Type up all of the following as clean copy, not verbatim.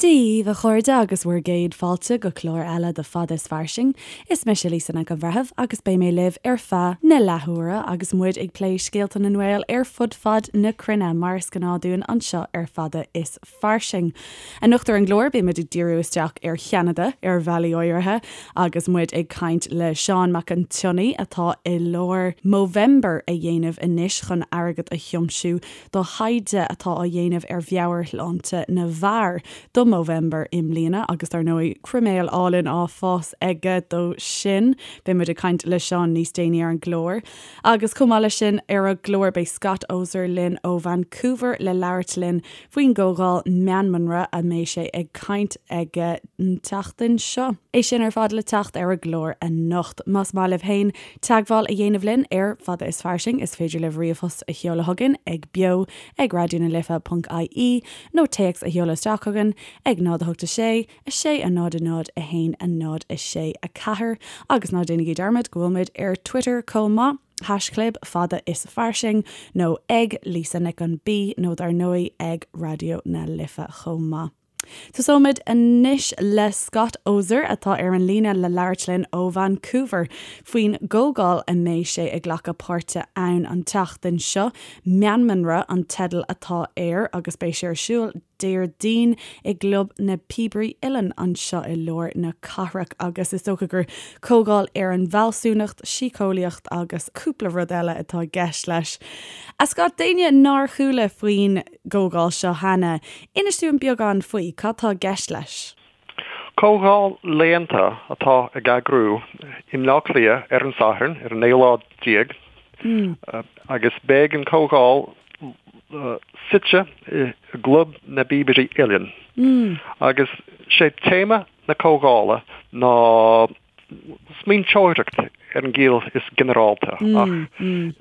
Dia dhaoibh a chairde agus bhur gcéad fáilte go clár eile de Fada is Fairsing. Is mise Lisa Nic an Bhreithimh agus beidh mé libh ar feadh na leathuaire agus muid ag plé scéalta na nGael ar fud fad na cruinne mar is gnáth dúinn anseo ar Fada is Fairsing. Anocht ar an gclár beidh muid ag díriú isteach ar Cheanada ar bhealaí áirithe agus muid ag caint le Seán Mac an tSionnaigh atá i lár Movember a dhéanamh anois chun airgead a thiomsiú do thaighde atá á dhéanamh ar mheabhairshláinte na bhfear do Movember i mbliana agus dar ndóigh croiméal álainn á fás aige dó sin. Beidh muid ag caint le Seán níos déanaí ar an gclár. Agus chomh maith leis sin ar an gclár beidh Scott Oser linn ó Vancouver le labhairt linn faoin gcomhdháil Meanmanra a mbeidh sé ag caint aige an tseachtain seo. É sin ar fad le teacht ar an gclár anocht. Más maith libh féin teagmháil a dhéanamh linn ar Fada is Fairsing is féidir libh ríomhphost a sheoladh chugainn ag beo ag raidionalife ponc ie nó téacs a sheoladh isteach chugainn ag 0 8 6 6 0 0 1 0 6 4 agus ná déanaigí dearmad go bhfuil muid ar Twitter chomh maith, haischlib fada is fairsing nó ag Lisa Nic an B nó dar ndóigh ag Raidió na Life chomh maith. Tosóimid anois le Scott Oser atá ar an líne le labhairt linn ó Vancouver faoin gcomhdháil a mbeidh sé ag glacadh páirte ann an tseachtain seo. Meanmanra an teideal atá air agus beidh sé ar siúl Déardaoin i gClub na Píobairí Uilleann anseo i lár na cathrach agus is dócha gur comhdháil ar an bhfealsúnacht, síceolaíocht agus cúpla rud eile atá i gceist leis. A Scott, d'éinne nár chuala faoin gcomhdháil seo cheana, inis dúinn beagán faoi, cad tá i gceist leis? Comhdháil léannta atá ag eagrú i mBleá Cliath ar an Satharn, ar an naoú lá déag, agus beidh an comhdháil suite i gClub na bPíobairí Uilleann. Agus sé téama na comhdhála ná smaointeoireacht ar an gciall is ginearálta, ach an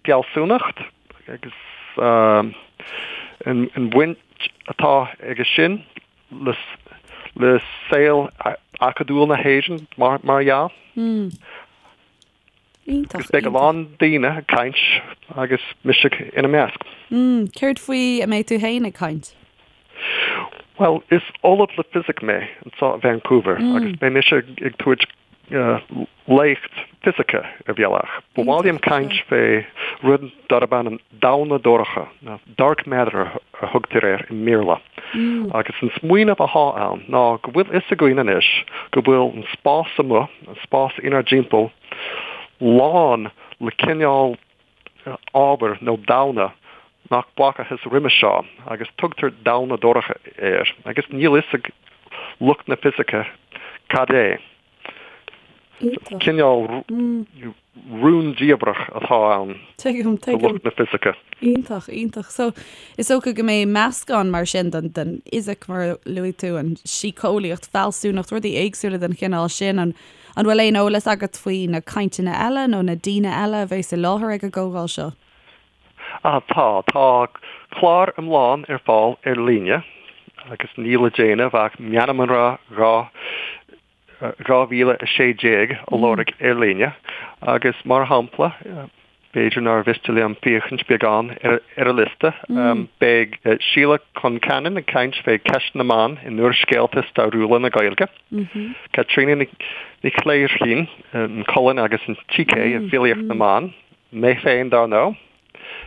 fealsúnacht agus an bhaint atá aige sin le saol acadúil na hÉireann, mar dhea. Iontach, Agus beidh a lán daoine ag caint agus mise ina measc. Céard faoi a mbeidh tú féin ag caint? Bhuel, is ollamh le fisic mé anseo i Vancouver agus beidh mise ag tabhairt léacht fisice ar bhealach. Ba mhaith liom caint fé rud darb ainm damhna dorcha, nó dark matter a thugtar air i mBéarla. Agus an smaoineamh athá ann ná go bhfuil fhios againn anois go bhfuil an spás amuigh, an spás inár dtimpeall, lán le cineál ábhair nó damhna nach bhfacathas roimhe seo agus tugtar damhna dorcha air agus níl fhios ag lucht na fisice cad é. Cineál rúndiamhrach atá ann do lucht na fisice. Iontach, iontach. So, is dócha go mbeidh meascán mar sin den den fhisic, mar a luaigh tú, an síceolaíocht, fealsúnacht, rudaí éagsúla den chineál sin. An an bhfuil aon eolas agat faoi na cainteanna eile nó na daoine eile a bheas i láthair ag an gcomhdháil seo? Ah, tá. Tá clár iomlán ar fáil ar líne agus níl le déanamh ach Meanmanra 2 2016 a lorg ar líne agus, mar shampla, b'fhéidir nár mhiste liom féachaint beagán ar an liosta, beidh Síle Concannon ag caint fé cheist na mban in úrscéalta stairiúla na Gaeilge, Caitríona Ní Chléirchín, an cholainn agus an tsícé i bhfilíocht na mban, mé féin dar ndóigh,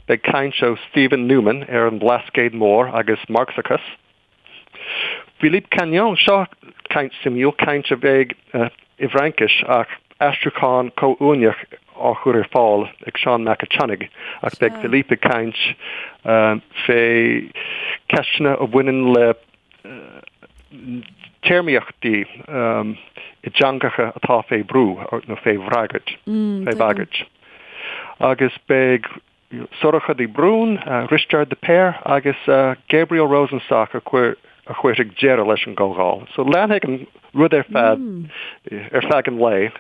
beidh caint ó Steven Newman ar an Bhlascaod Mór agus Marxachas. Philippe Cagnon, seo caint suimiúil, caint a bheidh i bhFraincis ach aistriúchán comhuaineach á chur ar fáil ag Seán Mac a' tSionnaigh ach beidh Philippe ag caint fé cheisteanna a bhaineann le téarmaíochtaí i dteangacha atá fé bhrú nó fé bhagairt. Fé bhagairt. Agus beidh Sorcha de Brún, Risteard de Paor agus Gabriel Rosenstock a chuirfidh deireadh leis an gcomhdháil. So leanfaidh an rud ar feadh ar feadh an lae,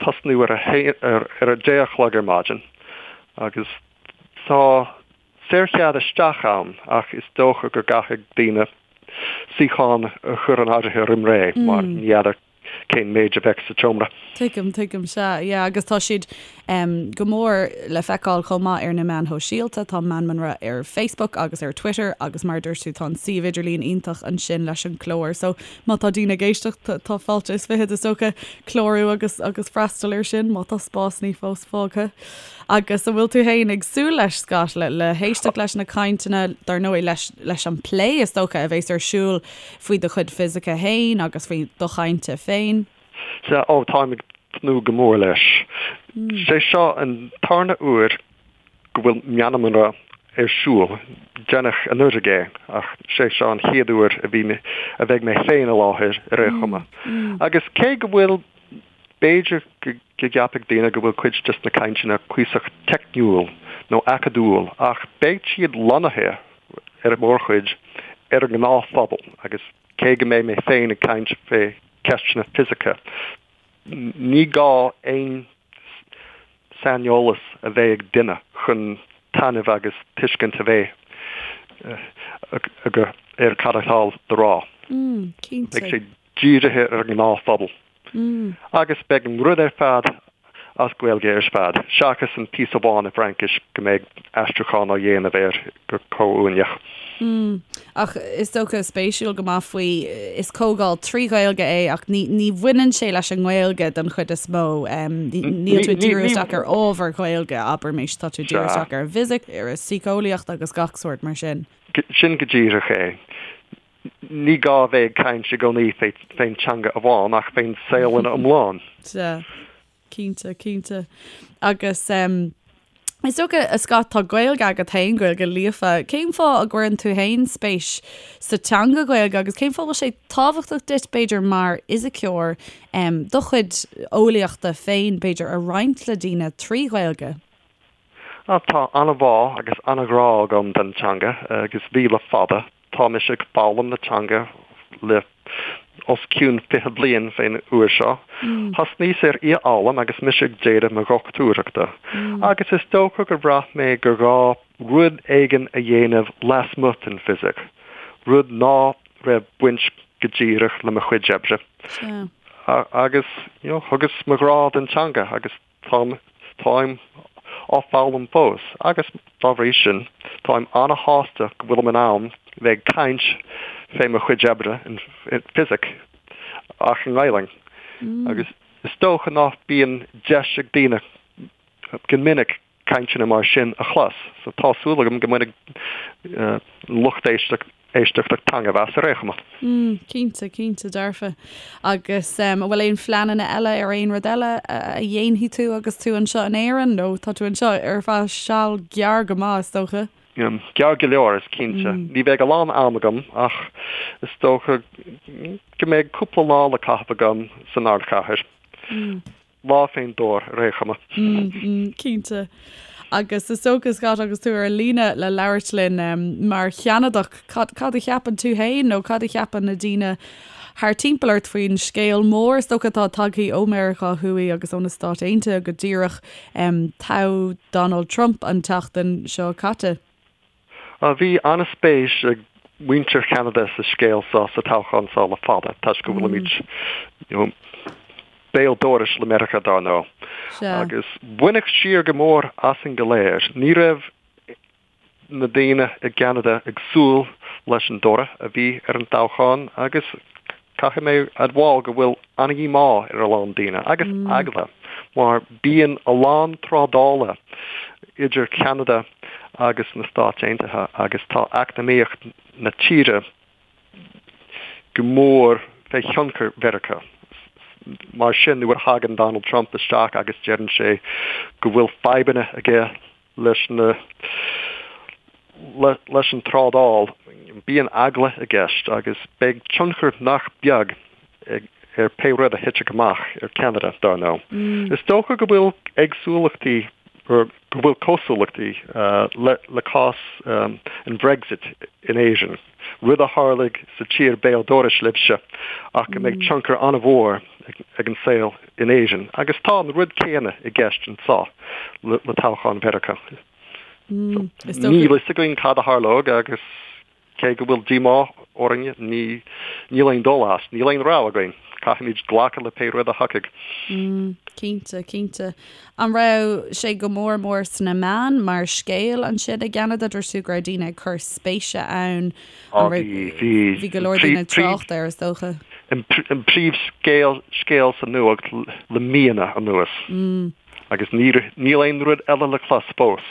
tosnú ar ar a deich a chlog ar maidin agus tá saorchead isteach ann ach is dócha go gcaithfidh daoine suíochán a chur in áirithe roim ré mar ní fheadar. cén méid a bheadh sa tseomra. Tuigim, tuigim, sea, yeah, agus tá siad go mór le feiceáil chomh maith ar na meáin shóisialta, tá Meanmanra ar Facebook agus ar Twitter agus mar a dúirt tú tá an suíomh idirlín iontach ansin leis an clár so má tá daoine ag éisteacht tá fáilte is fichead is dócha clárú agus agus freastal ar sin má tá spásanna fós fágtha. Agus an bhfuil tú féin ag súil leis, Scott, le le héisteacht leis na cainteanna, dar ndóigh leis leis an plé is dócha a bheas ar siúl faoi do chuid fisice féin agus faoi do chainte féin? Sea, ó, táim ag tnúth go mór leis. Sé seo an tarna uair go bhfuil Meanmanra ar siúl. Deineadh anuraidh é, ach sé seo an chéad uair a bhí mé, a bheidh mé féin i láthair ar aon chuma. Agus cé go bhfuil, b'fhéidir go gceapfadh daoine go bhfuil cuid des na cainteanna cuíosach teicniúil nó acadúil, ach beidh siad lonnaithe ar an mórchuid ar an ngnáthphobal agus cé go mbeidh mé féin ag caint fé ceisteanna fisice. Ní gá aon saineolas a bheith ag duine chun taitneamh agus tuiscint a bheith aige ar cad atá le rá. Beidh sé dírithe ar an ngnáthphobal. Agus beidh an rud ar fad as Gaeilge ar fad, seachas an píosa amháin i bhFraincis go mbeidh aistriúchán á dhéanamh air go comhuaineach. Mm. Ach is dócha, spéisiúil go maith faoi, is comhdháil trí Ghaeilge é ach ní, ní bhaineann sé leis an nGaeilge den chuid is mó. Níl tú ag díriú isteach ar ábhar Gaeilge, abraimis, tá tú ag díriú isteach ar an bhfisic, ar an síceolaíocht agus gach sórt mar sin. Sin go díreach é. Ní gá a bheith ag caint i gcónaí fén teanga amháin ach fén saol ina iomlán. Sea. Cinnte, cinnte. Agus is dócha, a Scott, tá Gaeilge agat féin, Gaeilge líofa. Cén fáth a gcuireann tú féin spéis sa teanga Ghaeilge agus cén fáth a bhfuil sé tábhachtach duit, b'fhéidir, mar fhisiceoir, do chuid eolaíochta féin, b'fhéidir, a roinnt le daoine trí Ghaeilge? Tá an-bhá agus an-ghrá agam don teanga agus bhí le fada. Tá mise ag foghlaim na teanga le os cionn 20 bliain fén uair seo. Thosnaíos ar í a fhoghlaim agus mise ag déanamh mo dhochtúireachta agus is dócha gur bhraith mé gur ghá rud éigin a dhéanamh lasmuigh den bhfisic, rud ná raibh baint go díreach le mo chuid oibre. Agus, you know, thugas mo ghrá don teanga agus Táim, táim á foghlaim fós agus, dá bhrí sin, táim ana-shásta go bhfuilim in ann bheith ag caint fé mo chuid oibre in fisic ach i nGaelainn. Agus is dócha ná bíonn deis ag daoine go minic cainteanna mar sin a chlos, so tá súil agam go mbainfidh lucht éisteachta éisteachta taitneamh as ar aon chuma. Mm, cinnte, cinnte, dearfa. Agus an bhfuil aon phleananna eile ar aon rud eile a dhéanfaidh tú agus tú anseo in Éirinn nó tá tú anseo ar feadh seal gearr go maith, is dócha? Gearr go leor, is cinnte. Ní bheidh a lán am agam ach is dócha go mbeidh cúpla lá le caitheamh agam san ardchathair. Lá fén dtor, ar aon chuma. Cinnte. Agus is dócha, Scott, agus tú ar an líne le labhairt linn mar Cheanadach, cad, cad a cheapann tú féin nó cad a cheapann na daoine thar timpeall ort faoin scéal mór is dócha atá tagtha ó Meiriceá Thuaidh agus ó na Stáit Aontaithe go díreach, toghadh Donald Trump an tseachtain seo caite? Bhí an-spéis ag muintir Cheanada sa scéal seo, sa toghchán seo le fada, toisc go bhfuilimid you know béal dorais le Meiriceá dar ndóigh. Agus baineadh siar go mór asainn go léir. Ní raibh na daoine i gCeanada ag súil leis an dtoradh a bhí ar an toghchán agus caithfidh mé admháil go bhfuil an-dhíomá ar a lán daoine, agus eagla, mar bíonn a lán trádála idir Ceanada agus na Stáit Aontaithe agus tá eacnamaíocht na tíre go mór fé thionchar Mheiriceá. Mar sin, nuair a thagann Donald Trump isteach agus deireann sé go bhfuil fadhbanna aige leis na leis an trádáil, bíonn eagla i gceist agus beidh tionchar nach beag ag ar pé rud a thitfidh amach ar Cheanada, dar ndóigh. Is dócha go bhfuil éagsúlachtaí, go bhfuil cosúlachtaí le le cás an Bhrexit in Éirinn, rud a tharlaigh sa tír béal dorais libhse ach go mbeidh tionchar an-mhór ag an saol in Éirinn. Agus tá an rud céanna i gceist anseo le toghchán Mheiriceá. Níl a fhios againn cad a tharlóidh agus. Cé go bhfuil díomá orainn, ní, níl aon dul as, níl aon rogha againn. Caithfimid glacadh le pé rud a thiocfaidh. Mm, cinnte, cinnte. An raibh sé go mór mór sna meáin mar scéal ansin i gCeanada? Dúirt tú go raibh daoine ag cur spéise ann. Á, bhí, bhí. Bhí go leor daoine ag trácht air, is dócha. An príomhscéal, scéal sa nuacht le míonna anuas. Mm. Agus ní, níl aon rud eile le clos fós.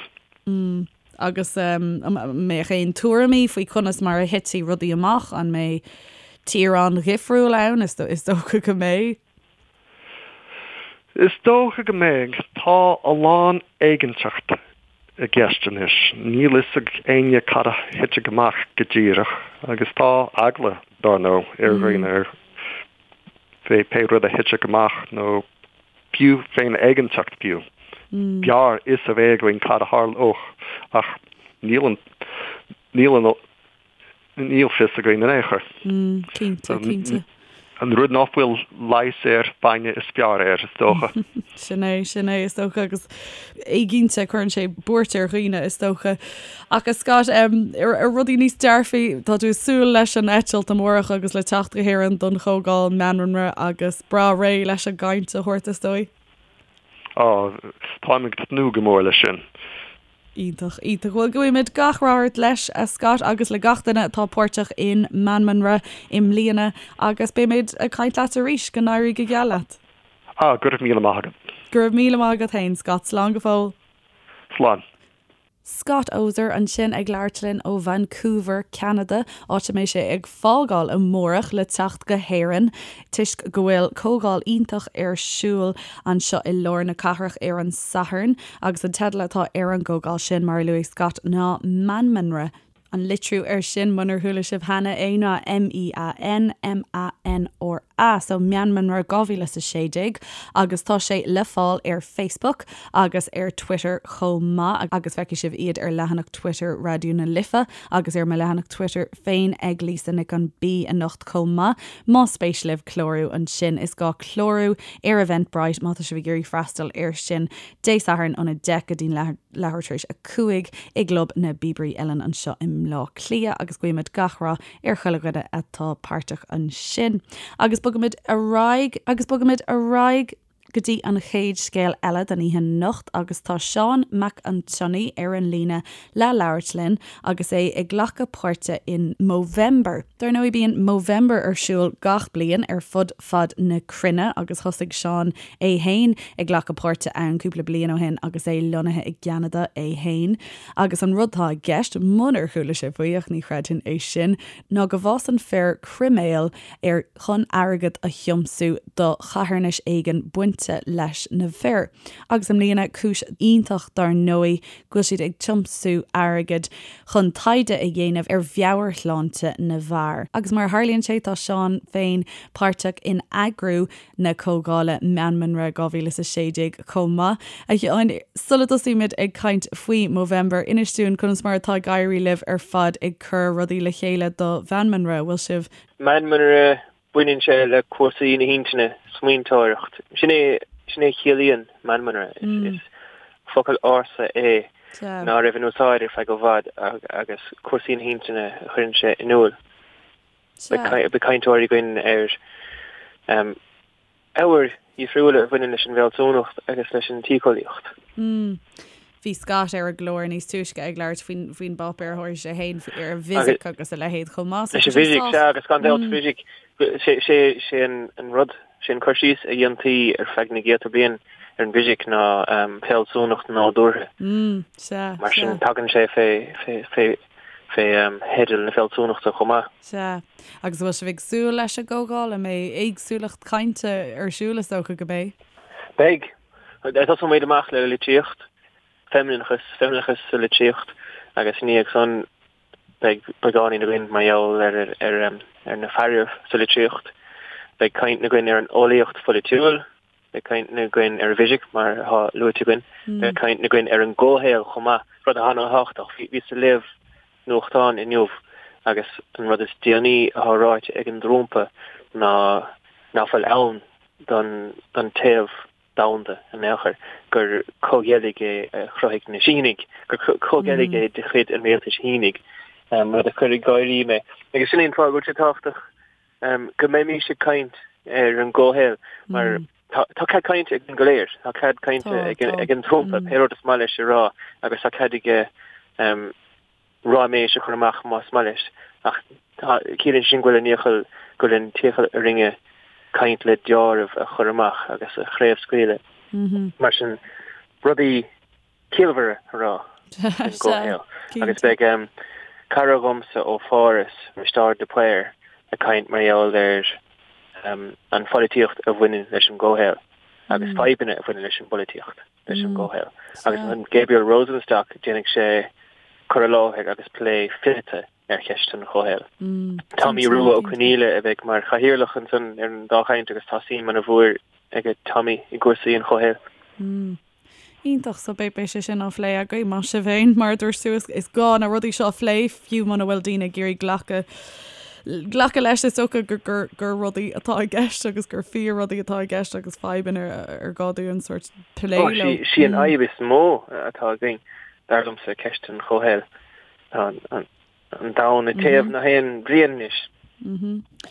Mm. Agus an mbeadh aon tuairimí faoi conas mar a thitfidh rudaí amach? An mbeidh tír an-dhifriúil ann? Is dócha go mbeidh. Is dócha go mbeidh. Tá a lán éiginnteacht i gceist anois. Níl fhios ag éinne cad a thitfidh amach go díreach agus tá eagla, dár ndóigh, ar dhaoine fé pé rud a thitfidh amach nó fiú fén éiginnteacht fiú. B'fhearr fhios a bheith againn cad a tharlódh ach níl an, níl an, níl fios againn in aon chor. Cinnte, cinnte. An rud nach bhfuil leigheas air, bainne is fearr air, is dócha. Sin é, sin é, is dócha, agus éiginnte, cuireann sé buairt ar dhaoine, is dócha. Ach a Scott, ar rudaí níos dearfaí, tá tú ag súil leis an eitilt amárach agus le teacht go hÉirinn don chomhdháil Meanmanra agus breá réidh leis an gcaint a thabhairt, is dóigh? Á, táim ag tnúth go mór leis sin. Iontach, iontach. Bhuel, guímid gach rath ort leis, a Scott, agus le gach duine atá páirteach in Meanmanra i mbliana agus beimid ag caint leat arís. Go n-éirí go geal leat. Ah, go raibh míle maith agat. Go raibh míle maith agat féin, Scott. Slán go fóill. Slán. Scott Oser ansin ag labhairt linn ó Vancouver, Ceanada, áit a mbeidh sé ag fágáil amárach le teacht go hÉirinn toisc go bhfuil comhdháil iontach ar siúl anseo i lár na cathrach ar an Satharn agus an teideal atá ar an gcomhdháil sin, mar a luaigh Scott, ná Meanmanra. An litriú air sin, munar chuala sibh cheana é, ná M-E-A-N-M-A-N-R-A, so Meanmanra 2016, agus tá sé le fáil ar Facebook agus ar Twitter chomh maith, agus feicfidh sibh iad ar leathanach Twitter Raidió na Life agus ar mo leathanach Twitter féin ag Lisa Nic an B anocht chomh maith. Más spéis libh clárú ansin, is gá clárú ar Eventbrite má tá sibh ag iarraidh freastal air sin Dé Sathairn óna 10 go dtí'n leathuair tar éis 5 i gClub na bPíobairí Uilleann anseo i mBleá Cliath agus guímid gach rath ar chuile dhuine atá páirteach ansin. Agus bogaimid ar aghaidh agus bogaimid ar aghaidh go dtí an chéad scéal eile don oíche anocht agus tá Seán Mac an tSionnaigh ar an líne le labhairt linn agus é ag glacadh páirte in Movember. Dar ndóigh bíonn Movember ar siúl gach bliain ar fud fad na cruinne agus thosaigh Seán é fhéin ag glacadh páirte ann cúpla bliain ó shin agus é lonnaithe i gCeanada é fhéin. Agus an rud atá i gceist, munar chuala sibh faoi, ach ní chreidfinn é sin, ná go bhfásann fir croiméal ar chun airgead a thiomsú do charthanais éigin bainte leis na fir. Agus i mbliana, cúis iontach dar ndóigh, go bhfuil siad ag tiomsú airgid chun taighde a dhéanamh ar mheabhairshláinte na bhfear. Agus mar a tharlaíonn sé, tá Seán féin páirteach in eagrú na comhdhála Meanmanra 2016 chomh maith. A Sheáin, sula dtosaímid ag caint faoi Movember, inis dúinn conas mar atá ag éirí libh ar fad ag cur rudaí le chéile do Mheanmanra. Bhfuil sibh. Meanmanra, baineann sé le cúrsaí na hintinne, smaointeoireacht. Sin é, sin é a chiallaíonn meanmanra. Is focal ársa é ná raibh in úsáid ar feadh i bhfad agus cúrsaí na hintinne a chuireann sé in iúl. Beidh cainteoirí againn ar ábhair dhifriúla a bhaineann leis an bhfealsúnacht agus leis an tsíceolaíocht. Bhí Scott ar an gclár níos túisce ag labhairt faoin bpáipéar a thabharfaidh sé féin ar an bhfisic agus a leithéid chomh maith. Leis an bhfisic, sea, agus gan dabht fisic, sé an rud, sé an cur síos a dhéantaí ar feadh na gcéadta bliain ar an bhfisic ná fealsúnacht nádúrtha. Sea, Mar sin tagann sé fé fé theideal na fealsúnachta chomh maith. Sea. Agus an bhfuil sibh ag súil leis an gcomhdháil? An mbeidh éagsúlacht cainte ar siúl? Is dócha go mbeidh. Beidh. Tosóimid amach le litríocht, feimineachas, feimineachas sa litríocht agus i ndiaidh san beidh beagáinín againn mar gheall ar ar ar na fearaibh sa litríocht. Beidh caint againn ar an eolaíocht pholaitiúil, Beidh caint againn ar an bhfisic, mar atá luaite againn. Beidh caint againn ar an gcomhshaol chomh maith, rud atá an-thábhachtach. Bhíos ag léamh nuachtáin inniu agus an rud is déanaí atá ráite ag an dTrumpa ná ná fuil ann don téamh domhanda in aon chor, gur comhgheilg é a chruthaigh na Sínigh, gur comhgheilg é de chuid an rialtais Shínigh. Rud a chuir ag gáirí mé. Agus sin é an fáth go bhfuil sé tábhachtach go mbeimís ag caint ar an gcomhshaol mar tá cead cainte againn go léir, tá cead cainte ag an Trumpa pé rud is maith leis a rá agus tá cead aige ráiméis a chur amach más maith leis ach ciallaíonn sin go bhfuil an iachall, go bhfuil an t-iachall orainne caint le deáramh a chur amach agus a chraobhscaoileadh. Mar sin rudaí ciallmhara a rá faoin gcomhshaol. Agus beidh cara dhomsa ó Pháras, Risteárd de Paor, ag caint mar gheall ar an pholaitíocht a bhaineann leis an gcomhshaol agus fadhbanna a bhaineann leis an bpolaitíocht leis an gcomhshaol. Agus an Gabriel Rosenstock, déanfaidh sé cur i láthair agus plé fileata ar cheist an chomhshaoil. Tommy Rua Ó Conghaile a bheidh mar chathaoirleach ansan ar an dá chaint agus tá suim ana-mhór ag Tommy i gcúrsaí an chomhshaoil. Iontach, so beidh beidh sé sin á phlé agaibh, maith sibh féin, mar a dúirt tú, is is gá na rudaí seo a phlé, fiú muna bhfuil daoine ag iarraidh glacadh glacadh leis, is dócha gur gur gur rudaí atá i gceist agus gur fíor rudaí atá i gceist agus fadhbanna ar ar gá dúinn sórt plé leo. Sí an fhadhb is mó atá againn, dar liomsa, ceist an chomhshaoil. Tá an an domhan ag téamh gach aon bhliain anois.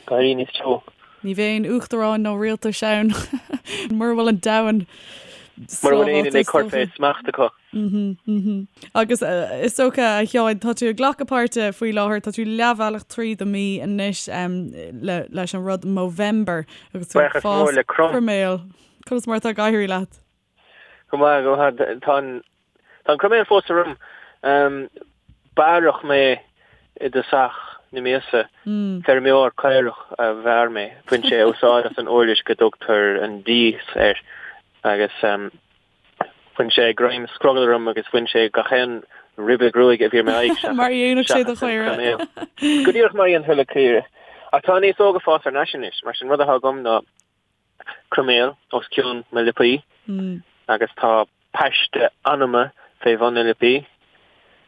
Ag éirí níos teo. Ní bheidh aon uachtaráin nó rialtais ann mura bhfuil an domhan Mura bhfuil éinne ag cur fé smacht acu. Agus is dócha, a Sheáin, tá tú ag glacadh páirte faoi láthair, tá tú leathbhealach tríd an mí anois leis an rud Movember agus tú ag fás croiméal. Conas mar atá ag éirí leat? Go maith, go maith. Tá an Tá an croiméal fós orm. Bearradh mé i dtosach na míosa. Feirmeoir caorach a bhearr mé. Bhain sé úsáid as an uirlis go dtugtar an dias air agus bhain sé greim scrogaill orm agus bhain sé gach aon ribe gruaige a bhí ar m'aghaidh seachas Mar a dhéanfadh sé do chaora. Go díreach mar a dhéanfadh le caora. Ach tá an fhéasóg ag fás thar n-ais anois, mar sin rud atá agam ná croiméal os cionn mo liopaí agus tá paiste anama fé bhun na liopaí,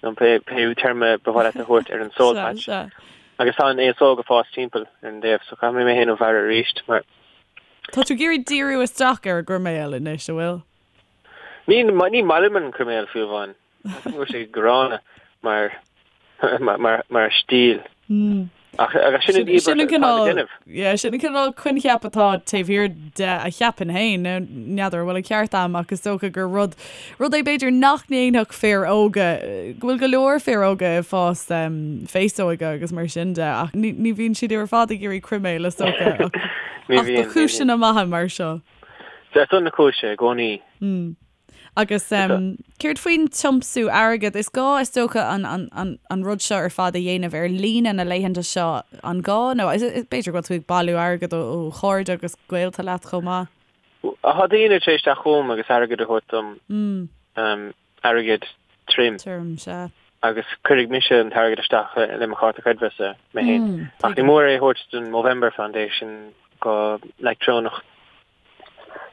nó pé téarma ba mhaith leat a thabhairt ar an soul patch. Agus tá an fhéasóg ag fás timpeall ar an dtaobh, so caithfidh mé mé féin a bhearradh arís mar. Tá tú ag iarraidh díriú isteach ar an gcroiméal anois, an bhfuil? Ní maith liom an croiméal fiú amháin. Go bhfuil sé gránna mar mar mar stíl. Ach agus sin an íobairt atá le déanamh. Yeah, sin an cineál coincheap atá taobh thiar de a cheapaim féin. Now, n'fheadar an bhfuil an ceart a'm ach is dócha gur rud rud é b'fhéidir nach ndéanfadh fir óga, go bhfuil go leor fir óga ag fás féasóige agus mar sin de ach ní ní bhíonn siad ar fad ag iarraidh croiméal is dócha ach ach do chúiseanna maithe mar seo. Ar son na cúise i gcónaí. Agus céard faoin tiomsú airgid? Is gá, is dócha, an rud seo ar fad a dhéanamh ar líne na laethanta seo, an gá? Nó b'fhéidir go bhfuil tú ag bailiú airgid ó chairde agus gaolta leat chomh maith? Tá daoine tar éis teacht chugam agus airgead a thabhairt dom, airgead tirim. Tirim, sea. Agus cuirfidh mise an t-airgead isteach le mo chárta creidmheasa mé féin. Ach ní mór é a thabhairt don Movember Foundation go leictreonach.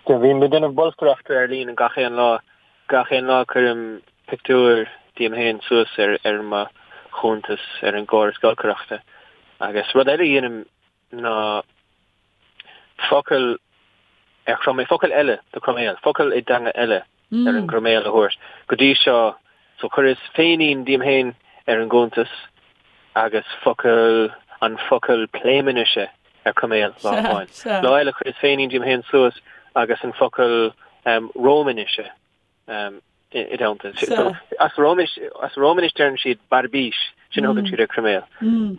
Bím ag déanamh bolscaireachta ar líne gach aon lá. Gach aon lá cuirim pictiúr díom féin suas ar ar mo chuntas ar an gcóras giolcaireachta. Agus rud eile a dhéanaim ná focal ar chroiméal, focal eile do chroiméal, focal i dteanga eile ar an gcroiméal a thabhairt. Go dtí seo, so chuireas féinín díom féin ar an gcuntas agus focal, an focal Pléiminnise ar croiméal lá amháin. Lá eile chuireas féinín díom féin suas agus an focal Rómainnise i dteannta. So as Rómainis, as Rómainis deireann siad barbís, sin a thugann siad ar croiméal.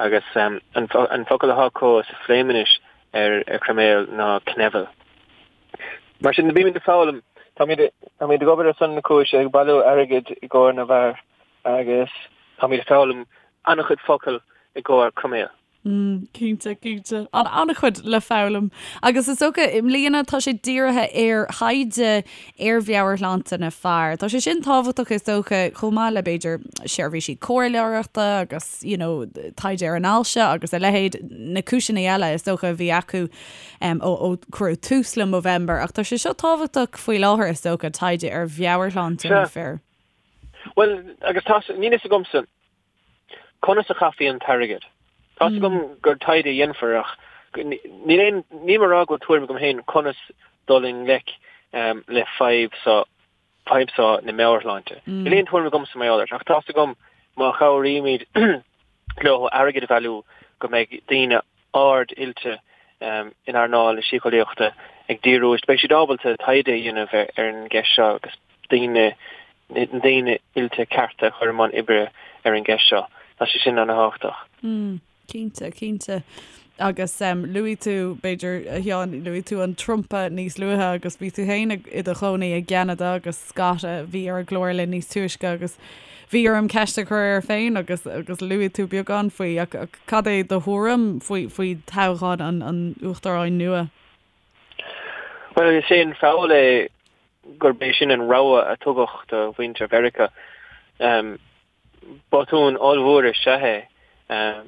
Agus an focal atá acu sa Phléiminis ar chroiméal ná knevel. Mar sin, bímid ag foghlaim. Táimid táimid ag obair ar son na cúise, ag bailiú airgid i gcomhair na bhfear agus táimid ag foghlaim an-chuid focal i gcomhair croiméal. Mm, cinnte, cinnte. An an-chuid le foghlaim. Agus is dócha, i mbliana tá sé dírithe ar thaighde ar mheabhairshláinte na fear. Tá sé sin tábhachtach is dócha chomh maith le b'fhéidir seirbhísí comhairleoireachta agus you know, taighde ar an ailse agus a leithéid, na cúiseanna eile is dócha a bhí acu ó cuireadh tús le Movember, ach tá sé seo tábhachtach faoi láthair, is dócha, taighde ar mheabhairshláinte na fir. Bhuel, agus tá, níl fhios agamsa conas a chaithfí an t-airgead. Tá fhios agam gur taighde a dhéanfar ach níl aon, níl mé ag rá go bhfuil tuairim agam féin conas dul i ngleic le fadhb seo, fadhb seo na meabhairshláinte. Níl aon tuairim agamsa mar gheall air, ach tá fhios agam má chabhraímid. Leo airgead a bhailiú go mbeidh daoine ard-oilte in earnáil na síceolaíochta ag díriú, beidh siad ábalta taighde a dhéanamh ar an gceist seo agus daoine, na daoine oilte cearta a chur i mbun oibre ar an gceist seo. Tá sé sin ana-thábhachtach. Cinnte, cinnte. Agus luaigh tú, b'fhéidir, a Sheáin, luaigh tú an Trumpa níos luaithe agus bhí tú féin i do chónaí i gCeanada agus Scott a bhí ar an gclár linn níos túisce agus bhí orm ceist a chur air féin agus agus luaigh tú beagán faoi ach cad é do thuairim faoi faoi toghchán an an uachtaráin nua? Bhuel, is é an feall é gurb é sin an rogha a tugadh do mhuintir Mheiriceá. Botún ollmhór is ea é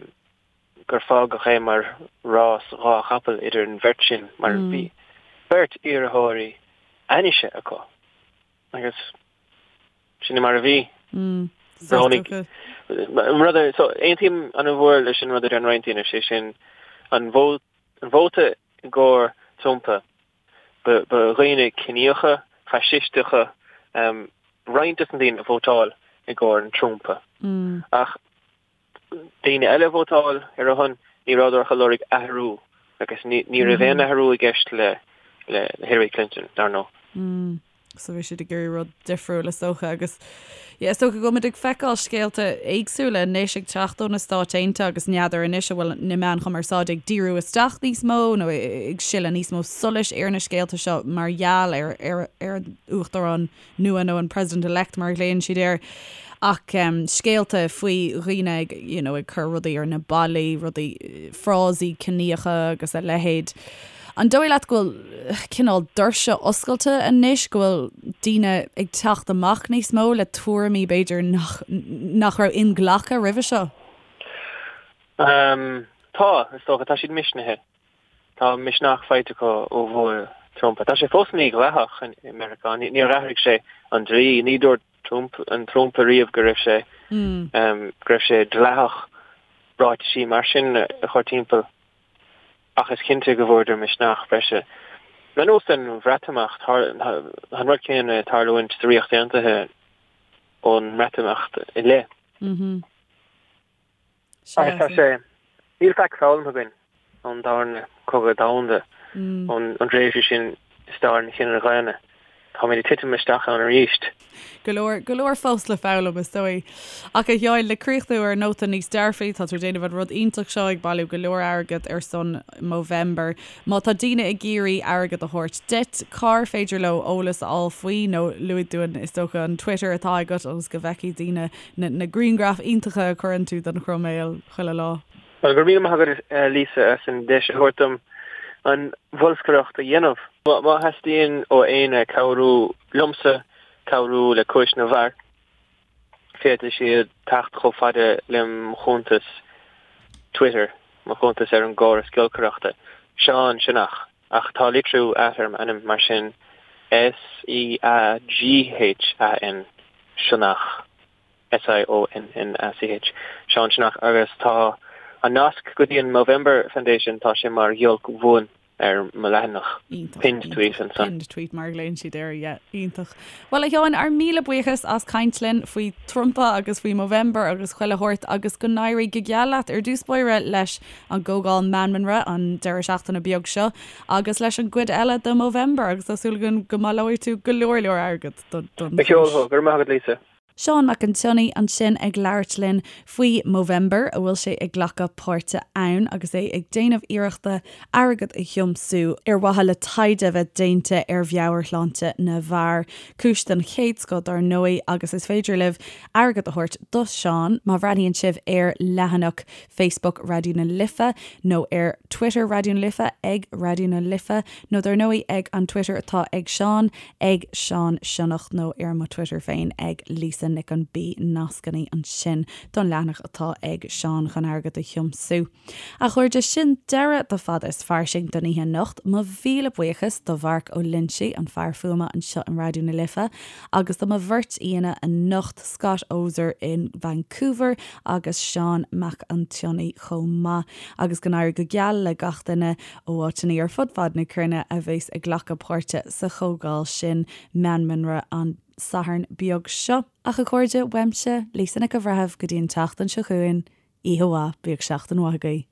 gur fágadh é mar rás dhá chapall idir an bheirt sin mar bhí beirt iarrthóirí ainnise acu agus sin é mar a bhí. Roghnaigh rud so aontaím an-mhór leis an rud a deir roinnt daoine, sé sin an vóta i gcomhair Trumpa Ba dhaoine ciníocha, faisisteacha roinnt des na daoine a vótáil i gcomhair an Trumpa. Ach daoine eile a vótáil ar a shon, ní rabhadar ach ag lorg athrú agus ní raibh aon athrú i gceist le Hillary Clinton, dar ndóigh. So bhí siad ag iarraidh rud difriúil is dócha agus yeah, is dócha go bhfuil muid ag feiceáil scéalta éagsúla anois ag teacht ó na Stáit Aontaithe agus n'fheadar anois an bhfuil na meáin chumarsáide ag díriú isteach níos mó nó ag sileadh níos mó solais ar na scéalta seo mar gheall ar ar ar an uachtarán nua nó an President-elect mar a ghlaonn siad air. Ach scéalta faoi dhaoine ag you know ag cur rudaí ar na ballaí, rudaí, frásaí ciníocha agus a leithéid. An dóigh leat go bhfuil cineál doirse oscailte anois, go bhfuil daoine ag teacht amach níos mó le tuairimí b'fhéidir nach nach raibh inghlactha roimhe seo? Tá, is dócha. Tá siad misnithe. Tá misneach faighte acu ó bhua Trump. Tá sé fós mídhleathach i Meiriceá. Níor athraigh sé an dlí. Ní dúirt Trump, an Trump ariamh go raibh sé go raibh sé dleathach ráitisí mar sin a chur timpeall. Ach is cinnte go bhfuaireadar misneach breise. Ar nós an Bhreatimeacht, tá an rud céanna ag tarlúint sa Ríocht Aontaithe ón mBreatimeacht i leith. Agus tá sé, níl faic foghlamtha againn ón darna cogadh domhanda, ón dtréimhse sin i stair an chine dhaonna. Táimid ag titim isteach ann arís. Go leor, go leor fós le foghlaim, is dóigh. Ach a Sheáin, le críochnú ar nóta níos dearfaí, tá tú ag déanamh an rud iontach seo, ag bailiú go leor airgead ar son Movember. Má tá daoine ag iarraidh airgead a thabhairt duit, cár féidir leo eolas a fháil faoi nó luaigh dúinn, is dócha, an Twitter atá agat ionas go bhfeicfidh daoine na na grianghraif iontacha a chuireann tú den chroiméal chuile lá. Bhuel, go raibh míle maith agat Lisa as an deis a thabhairt dom an bholscaireacht a dhéanamh. Má theastaíonn ó éinne cabhrú liomsa cabhrú le Cúis na bhFear, féadfaidh siad teacht chomh fada le mo chuntas Twitter, mo chuntas ar an gcóras giolcaireachta, Seán Sionnach, ach tá litriú ait ar m'ainm, mar sin S-E-A-G-H-A-N, Sionnach, S-I-O-N-N-A-C-H, Seán Sionnach, agus tá an nasc go dtí an Movember Foundation, tá sé mar ghiolc bhuan ar mo leathanach, pinned tweet ansan. Pinned tweet mar a ghlaonn siad air, yeah, iontach. Bhuel a Sheáin, ár míle buíochas as caint linn faoi Trumpa agus faoi Movember agus chuile shórt agus go n-éirí go geal leat ar dtús báire leis an gcomhdháil Meanmanra an deireadh seachtaine beag seo agus leis an gcuid eile de Movember agus tá súil againn go mbaileoidh tú go leor leor airgead don Go ceol thú, go raibh maith agat Lisa. Seán Mac an tSionnaigh ansin ag labhairt linn faoi Movember a bhfuil sé ag glacadh páirte ann agus é ag déanamh iarrachta airgead a thiomsú ar mhaithe le taighde a bheith déanta ar mheabhairshláinte na bhfear. Cúis den chéad scoth dar ndóigh agus is féidir libh airgead a thabhairt do Sheán má bhreathnaíonn sibh ar leathanach Facebook Raidió na Life nó ar Twitter Raidió na Life ag Raidió na Life nó dar ndóigh ag an Twitter atá ag Seán ag Seán Sionnach nó ar mo Twitter féin ag Lisa Nic an B nascanna ansin don leathanach atá ag Seán chun airgead a thiomsú. A chairde, sin deireadh do Fada is Fairsing don oíche anocht. Mo mhíle buíochas do Mharc Ó Loinsigh, an fear fuaime anseo in Raidió na Life, agus do mo bheirt aíonna anocht, Scott Oser in Vancouver agus Seán Mac an tSionnaigh chomh maith. Agus go n-éirí go geal le gach duine ó áiteanna ar fud fad na cruinne a bheas ag glacadh páirte sa chomhdháil sin Meanmanra an Satharn beag seo. Ach a chairde, uaimse, Lisa Nic an Bhreithimh, go dtí an tseachtain seo chugainn, Oíche mhaith, bíodh seachtain mhaith agaibh.